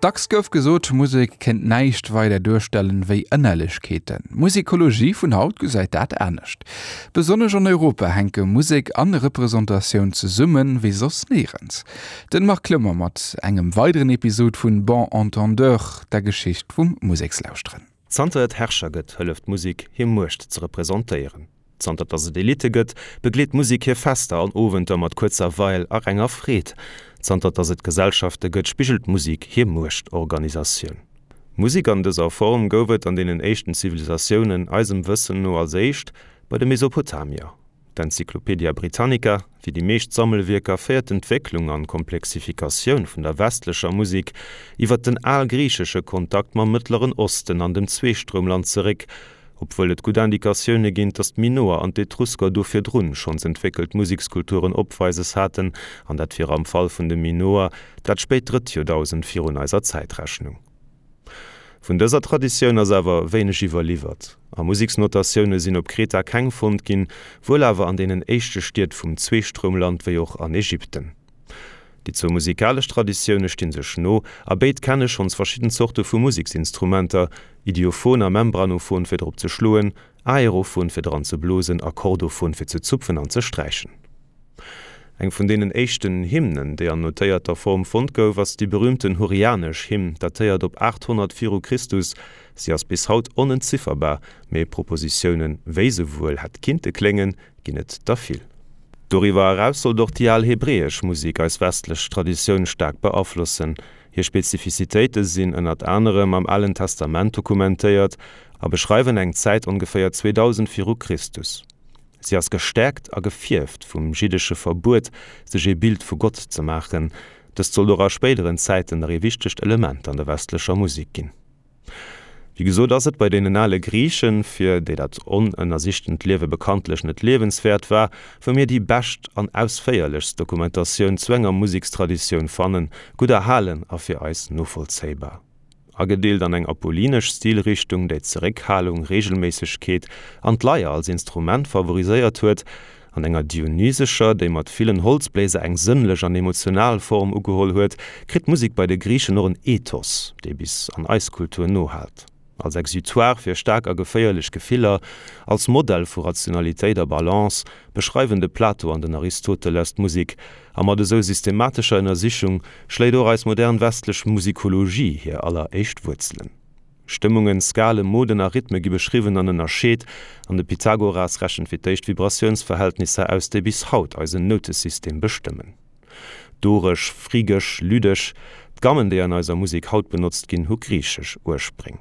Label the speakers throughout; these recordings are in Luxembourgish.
Speaker 1: Dacks gouf gesot, Musek kéint näischt weider duerstellen wéi Ënnerlechkeeten. D'Musikologie vun haut gesäit dat anescht. Besonnesch an Europa hänke Musek an Representatioun zesummen wéi soss néierens. Den Marc Clement mat engem weideren Episod vun Bon Entendeur, der Geschicht vum Musekslauschteren.
Speaker 2: Zanter et Herrscher gëtt, hëlleft d'Musek, hir Muecht ze representéieren. Zanter dass et Elitte gëtt, begleet d'Musek hir Fester an Owenter mat Kuerzerweil a renger Freed. Zanter dass et Gesellschafte gëtt, spigelt d'Musek hir Muechtorganisatioun. Musek an dëser Form gouf et an deenen éischten Zivilisatiounen, eisem Wëssen no als éischt bei de Mesopotamier. D'Encyclopedia Britannica, wéi déi meescht Sammelwierker, féiert d'Entwécklung an d'Komplexifikatioun vun der westlecher Musek iwwer den algriichesche Kontakt mam Mëttleren Osten an dem Zweestroumland zeréck, obwuel et gutt Indikatioune ginn, datt d'Minoer an d'Etrusker do virdrun schonns entwéckelt Musekskulturen opweises haten, an dat wier am Fall vun de Minoer dat spéit drëtt Joerdausend virun eiser Zäitrechnung. Vun dëser Traditioun ass awer wéineg iwwerliwwert, a Museksnotatioune sinn op Kreta keng fonnt ginn, wuel awer an deenen éischte Stied vum Zweestroumland wéi och an Ägypten. Déi zwou musikalesch Traditioune sti sech no, a béid kenne schonns verschidden Zorte vu Museksinstrumenter, Idiophon a Membranophon fir drop ze schloen, Aerophon fir dran ze blosen a Chordophon fir ze zupfen an ze sträichen. Eng vun deenen éischten Hymnen, déi an notéierter Form fonnt gouf, ass déi berüümten Hurrianesch Hymn, datéiert op 800 viru Christus. Si ass bis haut onentzifferbar, mee Propositiounen, wéi se wuel hätt kinnte kléngen, ginn et der vill. Doriwwer eraus sollt och déi al hebräesch Musek eis westlech Traditioun staark beaflossen. Hir Spezifizitéite sinn ënnert anerem am Alen Testament dokumentéiert a beschreiwen eng Zäit ongeféier 2000 viru Christus. Si ass gestäerkt a gefierft vum jiddesche Verbuet, sech ee Bild vu Gott ze maachen. Dëst sollt och a spéideren Zäiten nach ee wichtegt Element an der westlecher Musek ginn. Wéi gesot ass et bei deenen ale Griichen, fir déi dat onënnersichtent Liewe bekanntlech net liewenswäert war, wou mir déi bescht an ausféierlechst Dokumentatioun zu enger Musekstraditioun fannen, gutt erhalen a fir eis novollzéibar. Agedeelt an eng apollinesch Stilrichtung, déi Zeréckhalung, Reegelméissegkeet an d'Leier als Instrument favoriséiert huet, an enger dionysescher, déi mat villen Holzbléiser eng sënnlech an emotional Form ugeholl huet, kritt d'Musek bei de Griichen och en Ethos, dee bis an eis Kultur nohaalt. Als Exutoire fir staark a geféierlech Gefiller, als Modell vu Rationalitéit a Balance, beschreiwen de Plato an den Aristoteles d'Musek, a mat esou systematescher Ënnersichung schléit och eis modern westlech Musikologie hir alleréischt Wuerzelen. Stëmmungen, Skalen, Moden a Rhythme gi beschriwwen an ënnerscheet, an de Pythagoras rechent fir d'éischt Vibratiounsverhältnisser aus, déi bis haut eisen Noutesystem bestëmmen. Doresch, phrygesch, lydesch, d'Gammen, déi an eiser Musek haut benotzt ginn, hu griichesch Urspréng.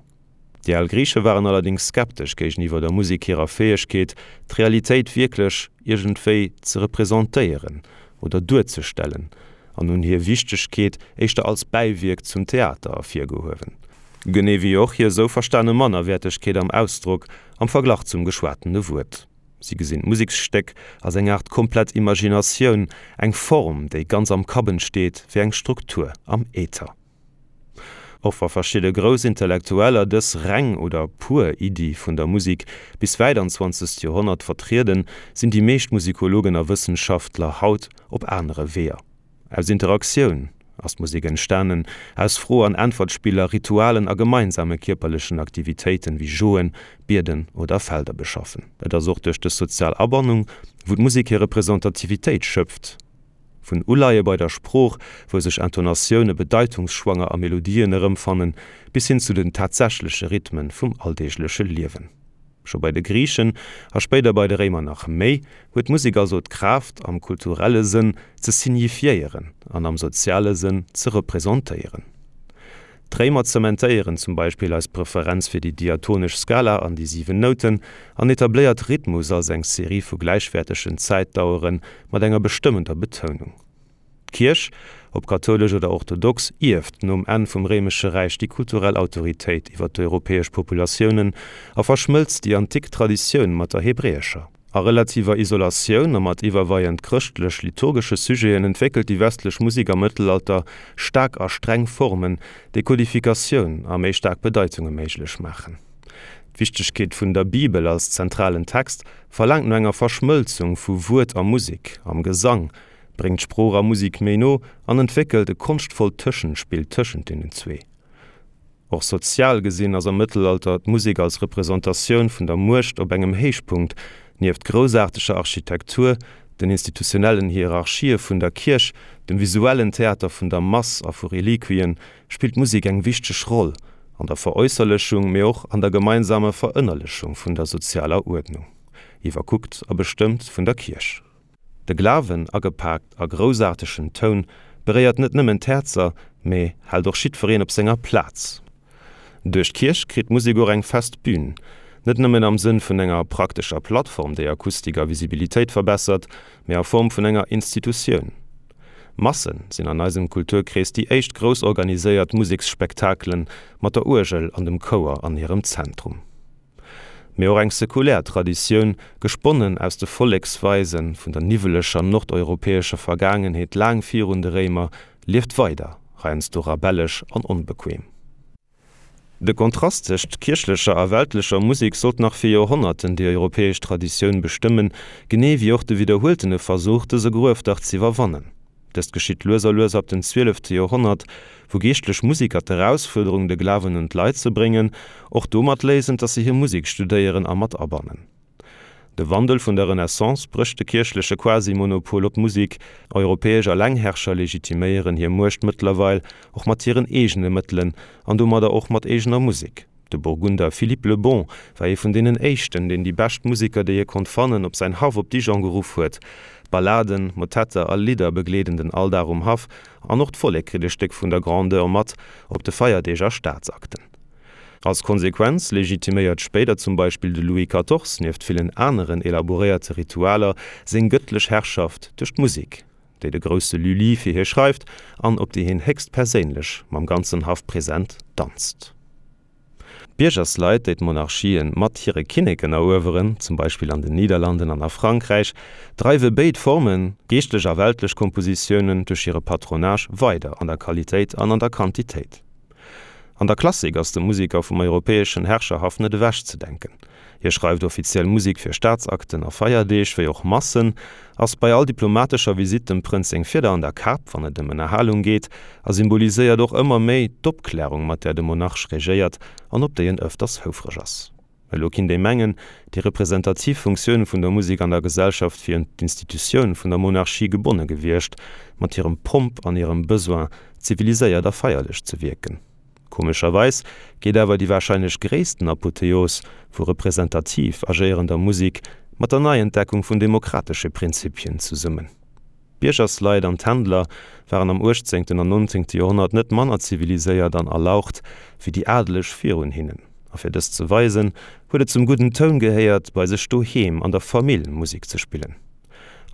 Speaker 2: Déi al Griiche waren allerdéngs skeptesch géigeniwwer der Musek hirer Fäegkeet, d'Realitéit wierklech iergendwéi ze representéieren oder duerzestellen, an hunn hir Wichtegkeet éischter als Bäiwierk zum Theater ervirgehuewen. Genee wéi och hir esou verstane Mannerwäertegkeet am Ausdrock am Verglach zum geschwatene Wuert. Si gesinn d'Museksstéck als eng Aart komplett Imaginatioun, eng Form, déi ganz am Kapp entsteet, wéi eng Struktur am Äther. Och wa verschidde grouss Intellektueller dës reng oder pur Iddi vun der Musek bis wäit an zwanzegst Joerhonnert vertrieden, sinn déi meescht Musikologen a Wëssenschaftler haut op anere Weeër. Aus Interaktioun ass d'Musek entstanen, aus Fro an Äntwertspiller, Ritualen a gemeinsame kierperlechen Aktivitéiten wéi Joen, Bieden oder Felder beschaffen. Et ass och duerch dës sozial Abannung, wou d'Musek hir Representativitéit schöpft. Vun Uleie bei der Sprooch, wou sech Intonatioune bedeitungsschwanger a Melodien erëmfannen, bis hin zu den tatsächleche Rhythmen vum alldeegleche Liewen. Scho bei de Griichen, a spéider bei de Réimer nach méi, huet d'Musek also d'Kraaft, am kulturelle Sënn ze signifiéieren an am soziale Sënn ze representéieren. D'Réimer zementéieren zum Beispill eis Preferenz fir déi diatonesch Skala an déi 7 Nouten an etabléiert Rhythmus als eng Serie vu gläichwäertegen Zäitdauere mat enger bestëmmender Betounung. D'Kierch, ob kathoulesch oder orthodox, ierft nom Enn vum Réimesche Räich déi kulturell Autoritéit iwwer d'europäesch Populatiounen a verschmëlzt déi antik Traditioun mat der hebräescher. A relativer Isolatioun a mat iwwerweiend chrëschtlech-liturgesche Sujeten entwéckelt déi westlech Musek am Mëttelalter staark a streng Formen, déi Kodifikatioun a méi staark Bedeitunge méiglech maachen. D'Wichtegkeet vun der Bibel als zentralen Text verlaangt no enger Verschmëlzung vu Wuert a Musek am Gesang, bréngt Sprooch a Musik méi no an entwéckelt e konschtvollt Tëschenspill tëschent deenen zwee. Och sozial gesinn ass am Mëttelalter d'Musek als Representatioun vun der Muecht op engem Héichpunkt, nieft groussaarteger Architektur, den institutionellen Hierarchië vun der Kierch, dem visuellen Theater vun der Mass a vu Reliquien, spillt d'Musek eng wichteg Roll an der Veräusserlechung, mee och an der gemeinsamer Verënnerlechung vun der sozialer Uerdnung, iwwerkuckt a bestëmmt vun der Kierch. De Glawen, agepaakt a groussaartegen Toun, beréiert net nëmmen d'Häerzer, mee hält och jiddwereen op senger Plaz. Duerch d'Kierch kritt d'Musek och eng fest Bün, net nëmmen am Sënn vun enger praktescher Plattform, déi Akustik a Visibilitéit verbessert, mee a Form vun enger Institutioun. Masse sinn an eisem Kulturkrees déi éischt grouss organiséiert Museksspektakelen mat der Uergel an dem Chouer an hirem Zentrum. Mee och eng sekulär Traditioun, gesponnen aus de Volleksweise vun der niwweleger nordeuropäescher Vergaangenheet laang virun de Réimer, lieft weider, heiansdo rabellesch an onbequem. De Kontrast tëscht kierchlecher a weltlecher Musek sollt nach fir Joerhonnerten déi europäesch Traditioun bestëmmen, genee wéi och de widderhueltene Versuch, dëse Gruefdach z'iwwerwannen. Dëst geschitt lues a lues ab dem zwielefte Joerhonnert, wou geeschtlech Musiker d'Erausfuerderung, de Glawen un d'Leit ze bréngen, och domat léisen, dass se hir Musek studéieren a mat abannen. De Wandel vun der Renaissance brécht de kierchleche Quasi-Monopol op d'Musek. Europäesch Allengherrscher legitiméieren hir Muecht mëttlerweil och mat hiren eegene Mëttelen an domadder och mat eegener Musek. De Burgunder Philippe le Bon war ee vun deenen éischten, deen déi bescht Museker, déi hie konnt fannen, op säin Haff op Dijon geruff huet. Balladen, Motetter a Lidder begleeden den Alldag um Haff an och d'Vollek kritt e Stéck vun der Grandeur mat op de Feierdeeg a Staatsakten. Als Konsequenz legitiméiert spéider zum Beispill de Louis Quatorze, nieft villen aneren elaboréierte Ritualer, seng gëttlech Herrschaft duerch d'Musek. déi de grousse Lully fir hie schreift an op déi hien héchst perséinlech mam ganzen Haff present danzt. D'Biergersleit, déi d'Monarchien mat hire Kinneken erueweren, zum Beispill an den Niederlanden an a Frankräich, dreiwe béid Formen, geeschtlech a weltlech Kompositiounen, duerch hire Patronage weider an der Qualitéit an an der Quantitéit. An der Klassik ass de Museker vum europäeschen Herrscherhaff net ewechzedenken. Hie schreift offiziell Musek fir Staatsakten a Feierdeeg, wéi och Massen, ass bei all diplomatescher Visitt dem Prënz seng Fieder an der Kap, wann et ëm Ënnerhalung geet, a symboliséiert och ëmmer méi d'Opklärung, mat där de Monarch regéiert an op déi en ëfters houfreg ass. Elo kinnt ee mengen, déi representativ Funktioun vun der Musek an der Gesellschaft wier un d'Institutioun vun der Monarchie gebonne gewiescht, mat hirem Pomp an hirem Besoin, ziviliséiert a feierlech ze wierken. Komescherweis geet awer déi warscheinlech gréissten Apotheos vu representativ agéierender Musek mat der Neientdeckung vun demokratesche Prinzipien zesummen. D'Biergersleit an d'Händler waren am uechtzéngten an nonzéngte Joerhonnert net manner ziviliséiert an erlaucht wéi déi Adeleg virun hinnen. A fir dëst ze weisen, huet et zum gudden Toun gehéiert, bei sech doheem an der Famill Musek ze spillen.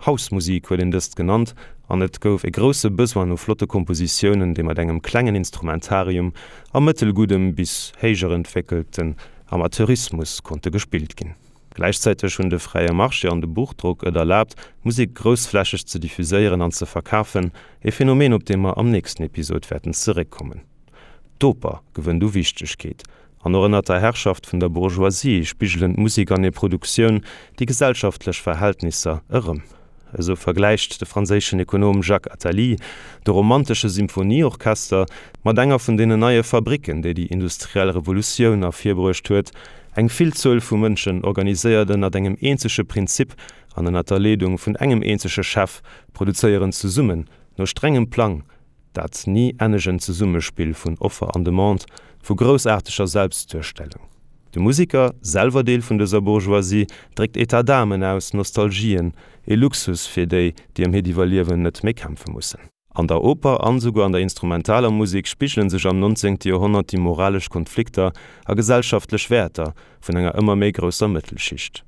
Speaker 2: Hausmusik huet een dëst genannt an et gouf e grousse Besoin no flotte Kompositiounen, déi mat engem klengen Instrumentarium a mëttelguddem bis héijerentwéckelten Amateurismus konnte gespillt ginn. Gläichzäiteg hunn de fräie Marché an de Buchdrock et erlaabt, Musek groussflächeg ze diffuséieren an ze verkafen, e Phänomen, op dee mer am nächsten Episod wäerten zeréckkommen. D'Oper gewënnt u Wichtegkeet, an och ënnert der Herrschaft vun der Bourgeoisie spigelen d'Musek an hir Produktioun déi gesellschaftlech Verhältnisser erëm. Esou vergläicht de franséischen Ekonom Jacques Attali de romantesche Symphonieorchester mat enger vun deenen neie Fabricken, déi déi industriell Revolutioun ervirbruecht huet, eng Villzuel vu Mënschen, organiséiert ënnert engem eenzege Prinzip an ënnert der Leedung vun engem eenzege Chef, produzéieren zesummen, no strengem Plang, Dat ni ennegent Zesummespill vun Offer an Demande, vu groussaarteger Selbstduerstellung. De Musiker, selwer Deel vun dëser Bourgeoisie, dréckt Etat d'âmen aus, Nostalgien, e Luxus fir déi, déi ëm hiert Iwwerliewen net méi kämpfe mussen. An der Oper an esouguer an der instrumentaler Musek spigele sech am 19. Joerhonnert déi moralesch Konflikter a gesellschaftlech Wäerter vun enger ëmmer méi grousser Mëttelschicht.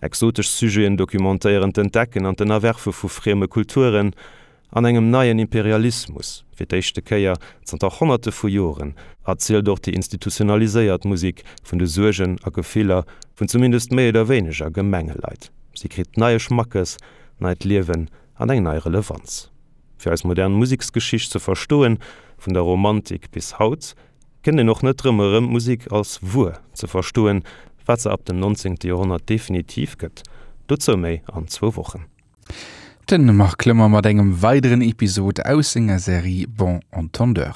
Speaker 2: Exotesch Sujeten documentéieren d'Entdecken an d'Ënnerwerfe vu frieme Kulturen, An engem neien Imperialismus, fir d'éischte Kéier zanter Honnerte vu Joren, erzielt och déi institutionaliséiert Musek vun de Suergen a Gefiller vun zumindest méi oder wéineger gemenge Leit. Si kritt neie Schmackes, neit Liewen an eng nei Relevanz. Fir eis modern Museksgeschicht ze verstoen, vun der Romantik bis haut, kënnt een och net drëm erëm, d'Musek als Wuer ze verstoen, wat se ab dem 19. Joerhonnert definitiv gëtt. Dozou méi an zwou Wochen.
Speaker 1: Den Marc Clement mat engem weideren Episod aus senger Serie Bon Entendeur.